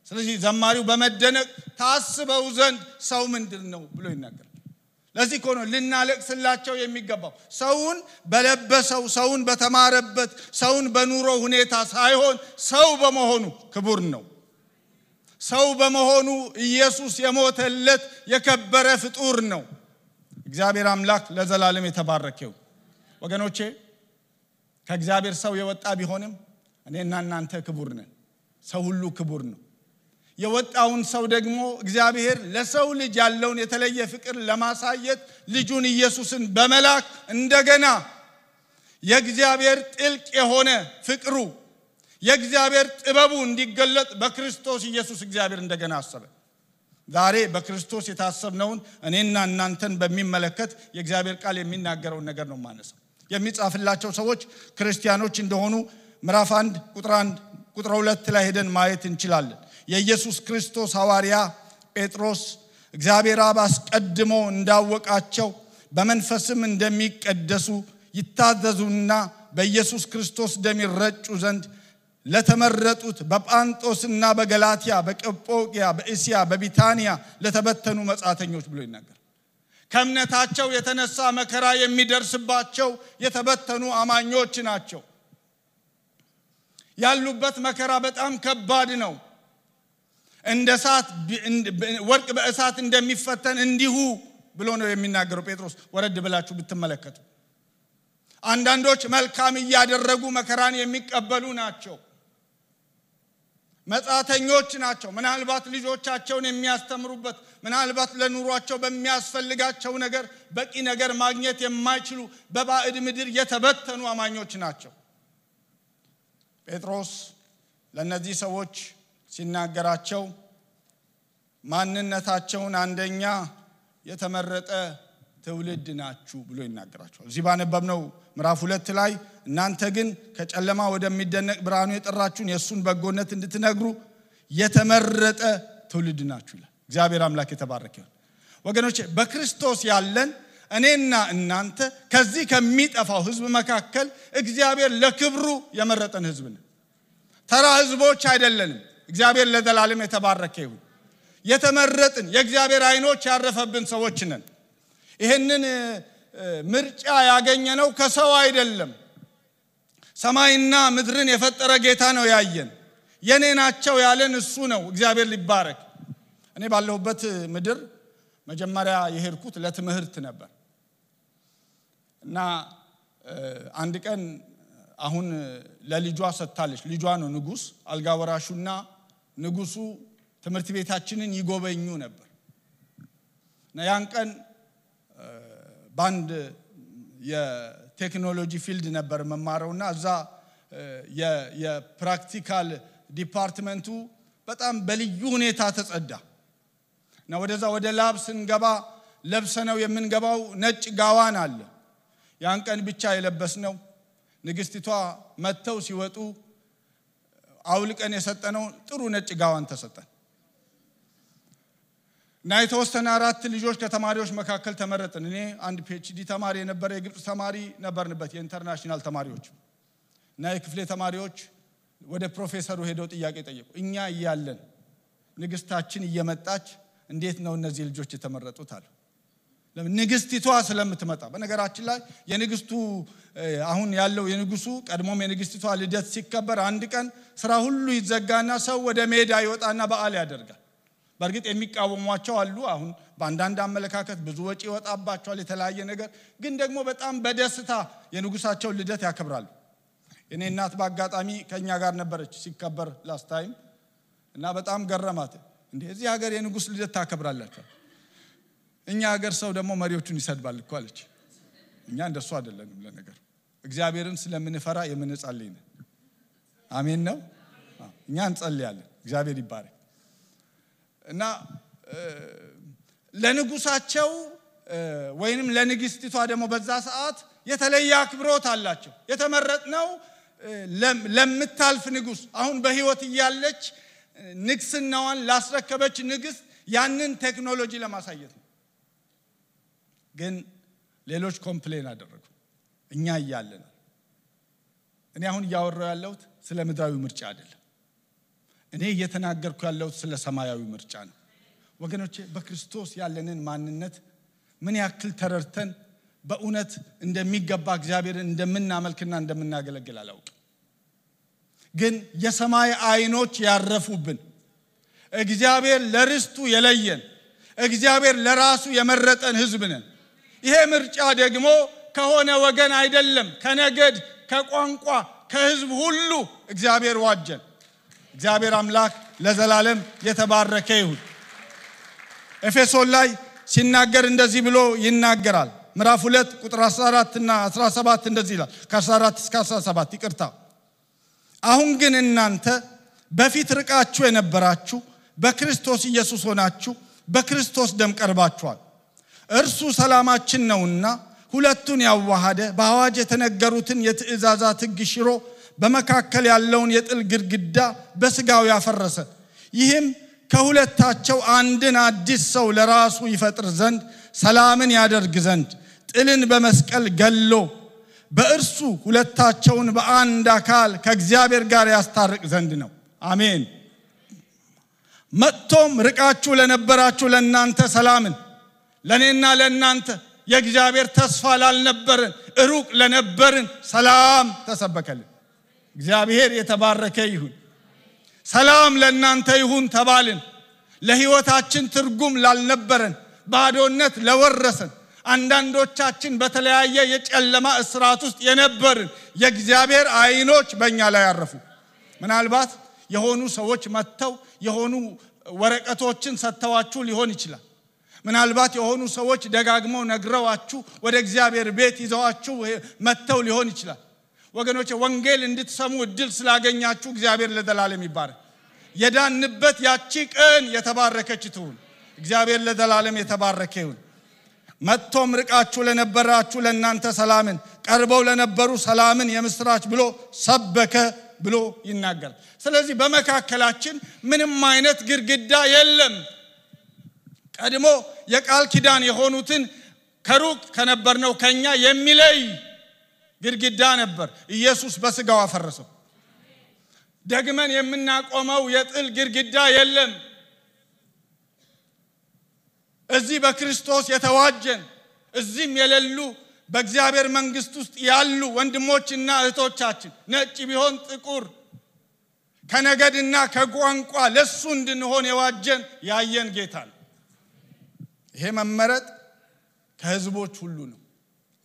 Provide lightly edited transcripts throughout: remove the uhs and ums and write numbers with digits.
ስለዚህ ዘማሪው በመደነቅ ታስበው ዘንድ ሰው ምንድነው ብሎ ይናገራል ለዚህ እኮ ነው ልናለቅስላቸው የሚገባው ሰውን በለበሰው ሰውን በተማረበት ሰውን በኑሮ ሁኔታ ሳይሆን ሰው በመሆኑ ክቡር ነው ሰው በመሆኑ ኢየሱስ የሞተለት የከበረ ፍጡር ነው እግዚአብሔር አምላክ ለዘላለም የተባረከው ወገኖቼ ከእግዚአብሔር ሰው የወጣ ቢሆንም እኔና እናንተ ክቡር ነን ሰው ሁሉ ክቡር ነው የወጣውን ሰው ደግሞ እግዚአብሔር ለሰው ልጅ ያለውን የተለየ ፍቅር ለማሳየት ልጁን ኢየሱስን በመላክ እንደገና የእግዚአብሔር ጥልቅ የሆነ ፍቅሩ የእግዚአብሔር ጥበቡ እንዲገለጥ በክርስቶስ ኢየሱስ እግዚአብሔር እንደገና አሰበ ዛሬ በክርስቶስ የታሰብነውን እኔና እናንተን በሚመለከት የእግዚአብሔር ቃል የሚናገረውን ነገር ነው ማነሳው የሚጻፍላቸው ሰዎች ክርስቲያኖች እንደሆኑ ምዕራፍ 1 ቁጥር 2 ላይ ሄደን ማየት እንችላለን የኢየሱስ ክርስቶስ ሐዋርያ ጴጥሮስ እግዚአብሔር አብ አስቀድሞ እንዳወቃቸው በመንፈስም እንደሚቀደሱ ይታዘዙና በኢየሱስ ክርስቶስ ደም ይረጩ ዘንድ ለተመረጡት በጳንጦስና በገላትያ በቀጶቅያ በእስያ በቢታንያ ለተበተኑ መጻተኞች ብሎ ይናገራል ከእምነታቸው የተነሳ መከራ የሚደርስባቸው የተበተኑ አማኞች ናቸው ያሉበት መከራ በጣም ከባድ ነው እንደ እሳት ወርቅ በእሳት እንደሚፈተን እንዲሁ ብሎ ነው የሚናገረው ጴጥሮስ ወረድ ብላችሁ ብትመለከቱ አንዳንዶች መልካም ያደረጉ መከራን የሚቀበሉ ናቸው መጻተኞች ናቸው ምናልባት ልጆቻቸውን የሚያስተምሩበት ምናልባት ለኑሯቸው በሚያስፈልጋቸው ነገር በቂ ነገር ማግኘት የማይችሉ በባዕድ ምድር የተበተኑ አማኞች ናቸው ጴጥሮስ ለነዚህ ሰዎች ሲናገራቸው ማንነታቸውን አንደኛ የተመረጠ ትውልድ ናችሁ ብሎ ይናገራቸዋል እዚህ ባነበብነው ምዕራፍ 2 ላይ እናንተ ግን ከጨለማ ወደሚደነቅ ብርሃኑ የጠራችሁን የሱን በጎነት እንድትነግሩ የተመረጠ ትውልድ ናችሁ ይላል እግዚአብሔር አምላክ የተባረከ ይሁን ወገኖቼ በክርስቶስ ያለን እኔና እናንተ ከዚህ ከሚጠፋው ህዝብ መካከል እግዚአብሔር ለክብሩ የመረጠን ህዝብ ነን ተራ ህዝቦች አይደለንም እግዚአብሔር ለዘላለም የተባረከ ይሁን የተመረጥን የእግዚአብሔር አይኖች ያረፈብን ሰዎች ነን ይሄንን ምርጫ ያገኘነው ከሰው አይደለም ሰማይና ምድርን የፈጠረ ጌታ ነው ያየን የኔ ናቸው ያለን እሱ ነው እግዚአብሔር ሊባረክ እኔ ባለሁበት ምድር መጀመሪያ የሄድኩት ለትምህርት ነበር እና አንድ ቀን አሁን ለልጇ ሰጣለች ልጇ ነው ንጉስ አልጋ ወራሹና ንጉሱ ትምህርት ቤታችንን ይጎበኙ ነበር እና ያን ቀን ባንድ የቴክኖሎጂ ፊልድ ነበር መማረውና እዛ የፕራክቲካል ዲፓርትመንቱ በጣም በልዩ ሁኔታ ተጸዳ እና ወደ ላብ ስንገባ ለብሰነው የምንገባው ነጭ ጋዋን አለ ያን ቀን ብቻ የለበስነው ንግስቲቷ መተው ሲወጡ አውልቀን የሰጠነው ጥሩ ነጭ ጋዋን ተሰጠን እና የተወሰነ 4 ልጆች ከተማሪዎች መካከል ተመረጥን እኔ አንድ ፒኤችዲ ተማሪ የነበረ የግብጽ ተማሪ ነበርንበት የኢንተርናሽናል ተማሪዎች እና የክፍሌ ተማሪዎች ወደ ፕሮፌሰሩ ሄደው ጥያቄ ጠየቁ እኛ ይያለን ንግስታችን እየመጣች እንዴት ነው እነዚህ ልጆች የተመረጡት አሉ ለምን ንግስቲቷ ስለምትመጣ በነገራችን ላይ የንግስቱ አሁን ያለው የንጉሱ ቀድሞም የንግስቲቷ ልደት ሲከበር አንድ ቀን ስራ ሁሉ ይዘጋና ሰው ወደ ሜዳ ይወጣና በዓል ያደርጋል በርግጥ የሚቃወሟቸው አሉ አሁን በአንዳንድ አመለካከት ብዙ ወጪ ይወጣባቸዋል የተለያየ ነገር ግን ደግሞ በጣም በደስታ የንጉሳቸው ልደት ያከብራሉ እኔ እናት ባጋጣሚ ከኛ ጋር ነበረች ሲከበር ላስት ታይም እና በጣም ገረማት እንዴ እዚህ ሀገር የንጉስ ልደት ታከብራላችሁ እኛ ሀገር ሰው ደግሞ መሪዎቹን ይሰድባል እኮ አለች እኛ እንደሱ አይደለንም ለነገር እግዚአብሔርን ስለምንፈራ የምንጸልይ ነን አሜን ነው እኛ እንጸልያለን እግዚአብሔር ይባረክ እና ለንጉሳቸው ወይንም ለንግስቲቷ ደግሞ በዛ ሰዓት የተለየ አክብሮት አላቸው የተመረጥነው ለምታልፍ ንጉስ አሁን በህይወት ይያለች ንግስናዋን ላስረከበች ንግስት ያንን ቴክኖሎጂ ለማሳየት ነው ግን ሌሎች ኮምፕሌን አደረጉ እኛ ይያለን እኔ አሁን ያወራው ያለሁት ስለ ምድራዊ ምርጫ አይደለም እኔ እየተናገርኩ ያለው ስለ ሰማያዊ ምርጫ ነው ወገኖቼ በክርስቶስ ያለንን ማንነት ምን ያክል ተረድተን በእውነት እንደሚገባ እግዚአብሔርን እንደምናመልክና እንደምናገለግል አላውቅም ግን የሰማይ አይኖች ያረፉብን እግዚአብሔር ለርስቱ የለየን እግዚአብሔር ለራሱ የመረጠን ሕዝብ ነን ይሄ ምርጫ ደግሞ ከሆነ ወገን አይደለም ከነገድ ከቋንቋ ከሕዝብ ሁሉ እግዚአብሔር ዋጀን እግዚአብሔር አምላክ ለዘላለም የተባረከ ይሁን ኤፌሶን ላይ ሲናገር እንደዚህ ብሎ ይናገራል ምዕራፍ 2 ቁጥር 14 እና 17 እንደዚህ ይላል ከ14 እስከ 17 ይቅርታ አሁን ግን እናንተ በፊት ርቃችሁ የነበራችሁ በክርስቶስ ኢየሱስ ሆናችሁ በክርስቶስ ደም ቀርባችኋል እርሱ ሰላማችን ነውና ሁለቱን ያዋሃደ በአዋጅ የተነገሩትን የትእዛዛት ሕግ ሽሮ በመካከል ያለውን የጥል ግድግዳ በስጋው ያፈረሰ ይህም ከሁለታቸው አንድን አዲስ ሰው ለራሱ ይፈጥር ዘንድ ሰላምን ያደርግ ዘንድ ጥልን በመስቀል ገሎ በእርሱ ሁለታቸውን በአንድ አካል ከእግዚአብሔር ጋር ያስታርቅ ዘንድ ነው አሜን መጥቶም ርቃችሁ ለነበራችሁ ለእናንተ ሰላምን ለኔና ለእናንተ የእግዚአብሔር ተስፋ ላልነበረን ሩቅ ለነበርን ሰላም ተሰበከልን እግዚአብሔር የተባረከ ይሁን ሰላም ለእናንተ ይሁን ተባልን ለሕይወታችን ትርጉም ላልነበረን ባዶነት ለወረሰን አንዳንዶቻችን በተለያየ የጨለማ እስራት ውስጥ የነበርን የእግዚአብሔር አይኖች በእኛ ላይ ያረፉ ምናልባት የሆኑ ሰዎች መተው የሆኑ ወረቀቶችን ሰተዋችሁ ሊሆን ይችላል ምናልባት የሆኑ ሰዎች ደጋግመው ነግረዋችሁ ወደ እግዚአብሔር ቤት ይዘዋችሁ መተው ሊሆን ይችላል ወገኖቼ ወንጌል እንድትሰሙ እድል ስላገኛችሁ እግዚአብሔር ለዘላለም ይባረክ የዳንበት ያቺ ቀን የተባረከች ትሁን እግዚአብሔር ለዘላለም የተባረከ ይሁን መጥቶም ርቃችሁ ለነበራችሁ ለእናንተ ሰላምን ቀርበው ለነበሩ ሰላምን የምስራች ብሎ ሰበከ ብሎ ይናገራል ስለዚህ በመካከላችን ምንም አይነት ግድግዳ የለም ቀድሞ የቃል ኪዳን የሆኑትን ከሩቅ ከነበርነው ከኛ የሚለይ ግድግዳ ነበር ኢየሱስ በስጋው አፈረሰው ደግመን የምናቆመው የጥል ግድግዳ የለም እዚህ በክርስቶስ የተዋጀን እዚህም የሌሉ በእግዚአብሔር መንግስት ውስጥ ያሉ ወንድሞችና እህቶቻችን ነጭ ቢሆን ጥቁር ከነገድና ከቋንቋ ለሱ እንድንሆን የዋጀን ያየን ጌታ ነው ይሄ መመረጥ ከህዝቦች ሁሉ ነው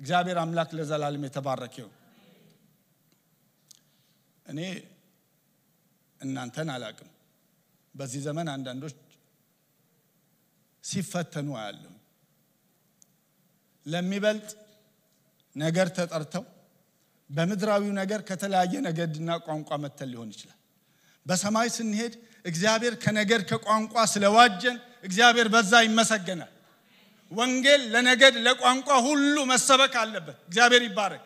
እግዚአብሔር አምላክ ለዘላለም የተባረከ ይሁን እኔ እናንተን አላቅም በዚህ ዘመን አንዳንዶች ሲፈተኑ አያለሁ ለሚበልጥ ነገር ተጠርተው በመድራዊው ነገር ከተለያየ ነገድና ቋንቋ መተል ሊሆን ይችላል በሰማይ ስንሄድ እግዚአብሔር ከነገር ከቋንቋ ስለዋጀን እግዚአብሔር በዛ ይመሰገናል ወንጌል ለነገድ ለቋንቋ ሁሉ መሰበክ አለበት እግዚአብሔር ይባረክ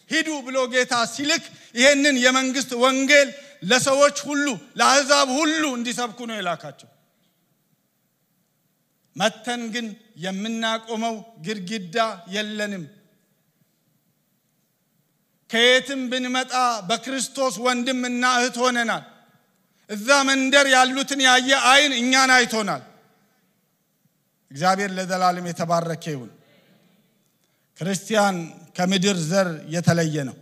ሂዱ ብሎ ጌታ ሲልክ ይሄንን የመንግስት ወንጌል ለሰዎች ሁሉ ለአሕዛብ ሁሉ እንዲሰብኩ ነው የላካቸው መተን ግን የምናቆመው ግድግዳ የለንም ከየትም ብንመጣ በክርስቶስ ወንድምና እህት ሆነናል እዛ መንደር ያሉትን ያየ አይን እኛን አይቶናል እግዚአብሔር ለዘላለም የተባረከ ይሁን ክርስቲያን ከምድር ዘር የተለየ ነው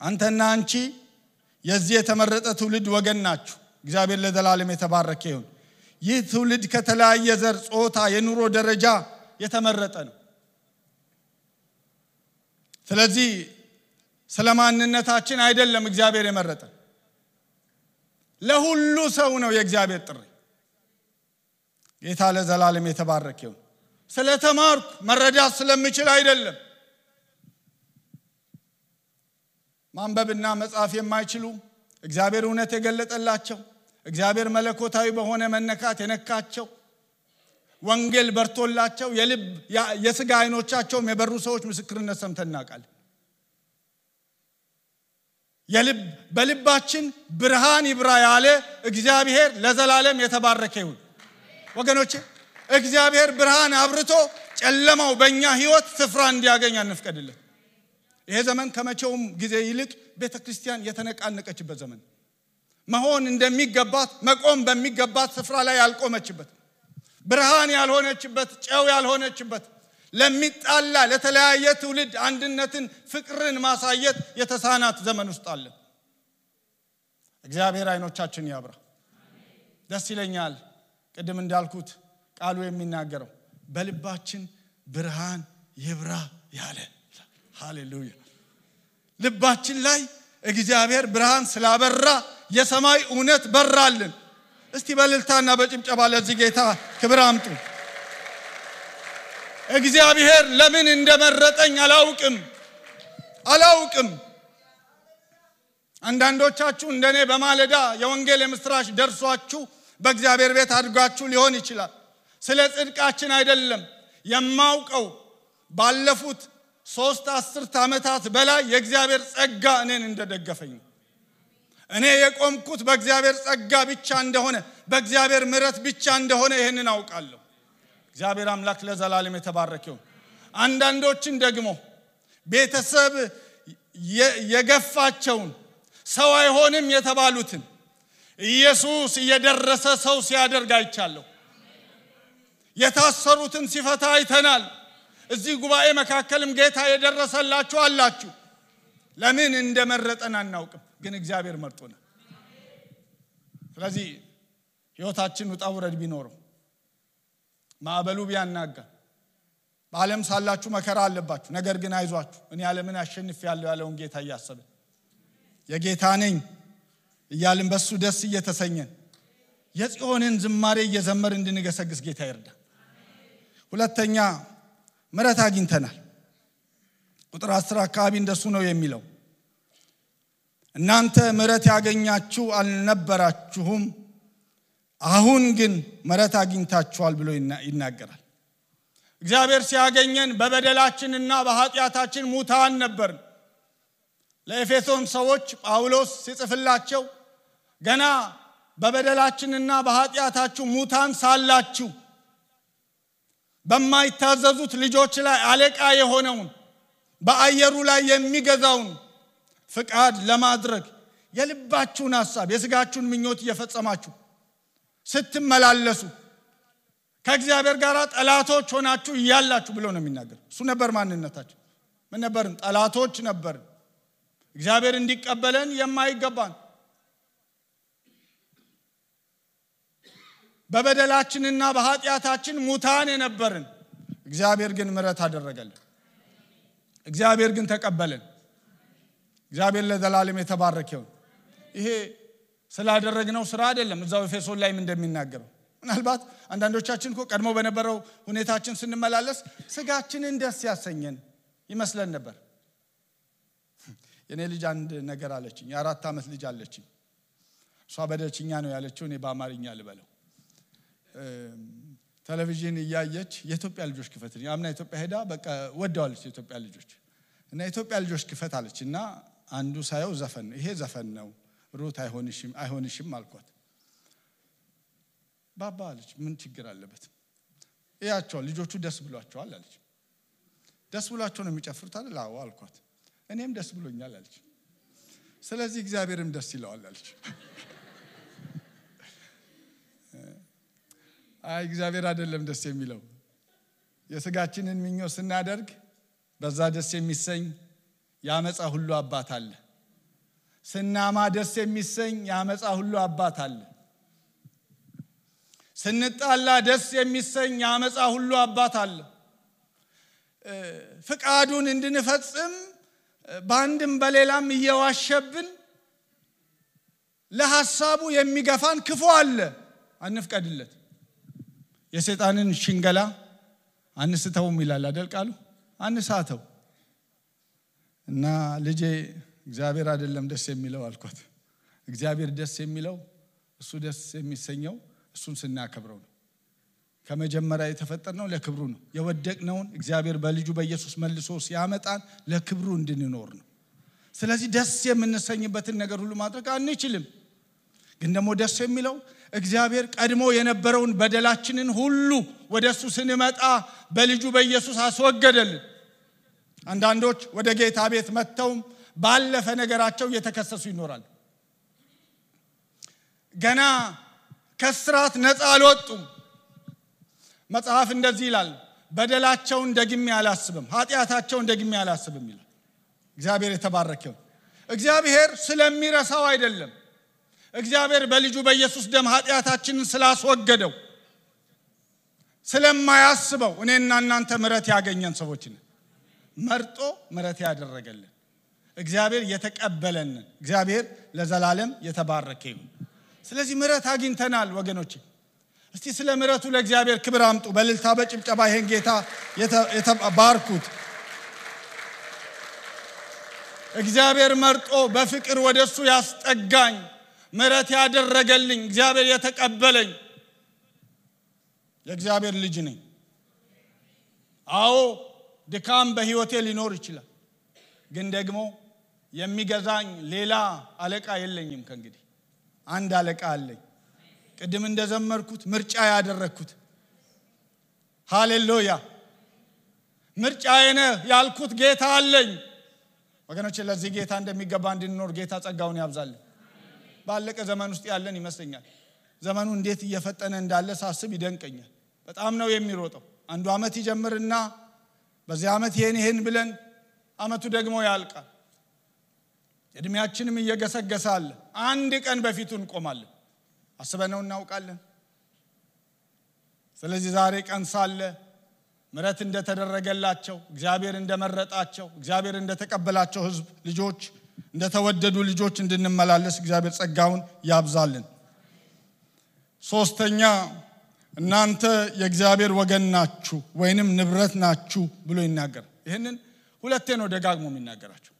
አንተና አንቺ የዚህ የተመረጠ ትውልድ ወገን ናችሁ እግዚአብሔር ለዘላለም የተባረከ ይሁን ይህ ትውልድ ከተለያየ ዘር ጾታ የኑሮ ደረጃ የተመረጠ ነው ስለዚህ ስለማንነታችን አይደለም እግዚአብሔር የመረጠ ለሁሉ ሰው ነው የእግዚአብሔር ጥሪ ጌታ ለዘላለም የተባረከ ይሁን ስለተማርኩ መረዳት ስለምችል አይደለም ማንበብና መጻፍ የማይችሉ እግዚአብሔር እውነት የገለጠላቸው እግዚአብሔር መለኮታዊ በሆነ መነካት የነካቸው ወንጌል በርቶላቸው የሥጋ አይኖቻቸው የበሩ ሰዎች ምስክርነት ሰምተናቃል በልባችን ብርሃን ይብራ ያለ እግዚአብሔር ለዘላለም የተባረከ ይሁን ወገኖቼ እግዚአብሔር ብርሃን አብርቶ ጨለማው በእኛ ህይወት ስፍራ እንዲያገኝ አንፍቀድልን ይሄ ዘመን ከመቼውም ጊዜ ይልቅ ቤተክርስቲያን የተነቃነቀችበት ዘመን መሆን እንደሚገባት መቆም በሚገባት ስፍራ ላይ ያልቆመችበት ብርሃን ያልሆነችበት ጨው ያልሆነችበት ለሚጣላ ለተለያየ ትውልድ አንድነትን ፍቅርን ማሳየት የተሳናት ዘመን ውስጥ አለ። እግዚአብሔር አይኖቻችን ያብራ። ደስ ይለኛል ቅድም እንዳልኩት ቃሉ የሚናገረው በልባችን ብርሃን ይብራ ያለ። ሃሌሉያ! ልባችን ላይ እግዚአብሔር ብርሃን ስላበራ የሰማይ እውነት በራልን። እስቲ በእልልታና በጭብጨባ ለዚህ ጌታ ክብር አምጡ። እግዚአብሔር ለምን እንደመረጠኝ አላውቅም። አንዳንዶቻችሁ እንደኔ በማለዳ የወንጌል የምስራች ደርሷችሁ በእግዚአብሔር ቤት አድጋችሁ ሊሆን ይችላል። ስለ ጽድቃችን አይደለም የማውቀው ባለፉት 3 10 ዓመታት በላይ የእግዚአብሔር ጸጋ እኔን እንደደገፈኝ እኔ የቆምኩት በእግዚአብሔር ጸጋ ብቻ እንደሆነ በእግዚአብሔር ምሕረት ብቻ እንደሆነ ይሄንን አውቃለሁ። እግዚአብሔር አምላክ ለዘላለም የተባረከ ይሁን። አንዳንዶችን ደግሞ ቤተሰብ የገፋቸውን ሰው አይሆንም የተባሉትን ኢየሱስ እየደረሰ ሰው ሲያደርግ አይቻለሁ። የታሰሩትን ሲፈታ አይተናል። እዚህ ጉባኤ መካከልም ጌታ የደረሰላችሁ አላችሁ። ለምን እንደመረጠን አናውቅም፣ ግን እግዚአብሔር መርጦናል። ስለዚህ ሕይወታችን ውጣ ውረድ ቢኖረው ማዕበሉ ቢያናጋ በዓለም ሳላችሁ መከራ አለባችሁ፣ ነገር ግን አይዟችሁ እኔ ዓለምን አሸንፌያለሁ ያለውን ጌታ እያሰብን የጌታ ነኝ እያልን በሱ ደስ እየተሰኘን የጽዮንን ዝማሬ እየዘመር እንድንገሰግስ ጌታ ይርዳ። ሁለተኛ ምሕረት አግኝተናል። ቁጥር 10 አካባቢ እንደሱ ነው የሚለው። እናንተ ምሕረት ያገኛችሁ አልነበራችሁም፣ አሁን ግን ምሕረት አግኝታችኋል ብሎ ይናገራል። እግዚአብሔር ሲያገኘን በበደላችንና በኃጢአታችን ሙታን ነበርን። ለኤፌሶን ሰዎች ጳውሎስ ሲጽፍላቸው ገና በበደላችንና በኃጢአታችሁ ሙታን ሳላችሁ በማይታዘዙት ልጆች ላይ አለቃ የሆነውን በአየሩ ላይ የሚገዛውን ፍቃድ ለማድረግ የልባችሁን ሐሳብ የሥጋችሁን ምኞት እየፈጸማችሁ ስትመላለሱ ከእግዚአብሔር ጋር ጠላቶች ሆናችሁ እያላችሁ ብሎ ነው የሚናገር። እሱ ነበር ማንነታችን። ምን ነበርን? ጠላቶች ነበርን። እግዚአብሔር እንዲቀበለን የማይገባን በበደላችንና በኃጢአታችን ሙታን የነበርን፣ እግዚአብሔር ግን ምሕረት አደረገልን። እግዚአብሔር ግን ተቀበለን። እግዚአብሔር ለዘላለም የተባረከ ይሁን። ይሄ ስላደረግነው ስራ አይደለም። እዛው ኤፌሶን ላይም እንደሚናገረው ምናልባት አንዳንዶቻችን እኮ ቀድሞ በነበረው ሁኔታችን ስንመላለስ ስጋችንን ደስ ያሰኘን ይመስለን ነበር። የኔ ልጅ አንድ ነገር አለችኝ። የ4 ዓመት ልጅ አለችኝ። እሷ በደልችኛ ነው ያለችው፣ እኔ በአማርኛ ልበለው። ቴሌቪዥን እያየች የኢትዮጵያ ልጆች ክፈት ያምና ኢትዮጵያ ሄዳ በቃ ወደዋለች የኢትዮጵያ ልጆች እና የኢትዮጵያ ልጆች ክፈት አለችና አንዱ ሳየው ዘፈን ነው። ይሄ ዘፈን ነው ሩት አይሆንሽም አልኳት። ባባ አለች ምን ችግር አለበት? እያቸው ልጆቹ ደስ ብሏቸዋል አለች። ደስ ብሏቸው ነው የሚጨፍሩት አይደል? አዎ አልኳት። እኔም ደስ ብሎኛል አለች። ስለዚህ እግዚአብሔርም ደስ ይለዋል አለች። አይ እግዚአብሔር አይደለም ደስ የሚለው፣ የሥጋችንን ምኞት ስናደርግ በዛ ደስ የሚሰኝ ያመጻ ሁሉ አባት አለ። ስናማ ደስ የሚሰኝ ያመጻ ሁሉ አባት አለ። ስንጣላ ደስ የሚሰኝ ያመጻ ሁሉ አባት አለ። ፍቃዱን እንድንፈጽም ባንድም በሌላም እየዋሸብን ለሐሳቡ የሚገፋን ክፉ አለ። አንፍቀድለት። የሰይጣንን ሽንገላ አንስተውም ይላል አይደል ቃሉ? አንሳተው እና ልጄ እግዚአብሔር አይደለም ደስ የሚለው አልኳት። እግዚአብሔር ደስ የሚለው እሱ ደስ የሚሰኘው እሱን ስናከብረው ነው። ከመጀመሪያ የተፈጠርነው ለክብሩ ነው። የወደቅነውን እግዚአብሔር በልጁ በኢየሱስ መልሶ ሲያመጣን ለክብሩ እንድንኖር ነው። ስለዚህ ደስ የምንሰኝበትን ነገር ሁሉ ማድረግ አንችልም። ግን ደግሞ ደስ የሚለው እግዚአብሔር ቀድሞ የነበረውን በደላችንን ሁሉ ወደሱ ስንመጣ በልጁ በኢየሱስ አስወገደልን። አንዳንዶች ወደ ጌታ ቤት መጥተው ባለፈ ነገራቸው እየተከሰሱ ይኖራሉ። ገና ከስራት ነፃ አልወጡም። መጽሐፍ እንደዚህ ይላል፣ በደላቸውን ደግሜ አላስብም፣ ኃጢአታቸውን ደግሜ አላስብም ይላል። እግዚአብሔር የተባረከው። እግዚአብሔር ስለሚረሳው አይደለም። እግዚአብሔር በልጁ በኢየሱስ ደም ኃጢአታችንን ስላስወገደው ስለማያስበው እኔና እናንተ ምሕረት ያገኘን ሰዎች ነን። መርጦ ምሕረት ያደረገልን እግዚአብሔር የተቀበለን እግዚአብሔር ለዘላለም የተባረከ ይሁን። ስለዚህ ምሕረት አግኝተናል ወገኖቼ። እስቲ ስለ ምሕረቱ ለእግዚአብሔር ክብር አምጡ። በእልልታ በጭብጨባ ይሄን ጌታ የተባርኩት። እግዚአብሔር መርጦ በፍቅር ወደሱ ያስጠጋኝ ምሕረት ያደረገልኝ እግዚአብሔር የተቀበለኝ የእግዚአብሔር ልጅ ነኝ። አዎ ድካም በህይወቴ ሊኖር ይችላል፣ ግን ደግሞ የሚገዛኝ ሌላ አለቃ የለኝም። ከእንግዲህ አንድ አለቃ አለኝ። ቅድም እንደዘመርኩት ምርጫ ያደረኩት ሃሌሉያ ምርጫዬ ነህ ያልኩት ጌታ አለኝ። ወገኖቼ ለዚህ ጌታ እንደሚገባ እንድንኖር ጌታ ጸጋውን ያብዛልን። ባለቀ ዘመን ውስጥ ያለን ይመስለኛል። ዘመኑ እንዴት እየፈጠነ እንዳለ ሳስብ ይደንቀኛል። በጣም ነው የሚሮጠው። አንዱ አመት ይጀምርና በዚህ አመት ይሄን ብለን አመቱ ደግሞ ያልቃል። እድሜያችንም እየገሰገሳለ አንድ ቀን በፊቱ እንቆማለን። አስበነው እናውቃለን። ስለዚህ ዛሬ ቀን ሳለ ምሕረት እንደተደረገላቸው እግዚአብሔር እንደመረጣቸው እግዚአብሔር እንደተቀበላቸው ህዝብ ልጆች እንደተወደዱ ልጆች እንድንመላለስ እግዚአብሔር ጸጋውን ያብዛልን። ሶስተኛ እናንተ የእግዚአብሔር ወገን ናችሁ ወይንም ንብረት ናችሁ ብሎ ይናገር። ይሄንን ሁለቴ ነው ደጋግሞ የሚናገራቸው።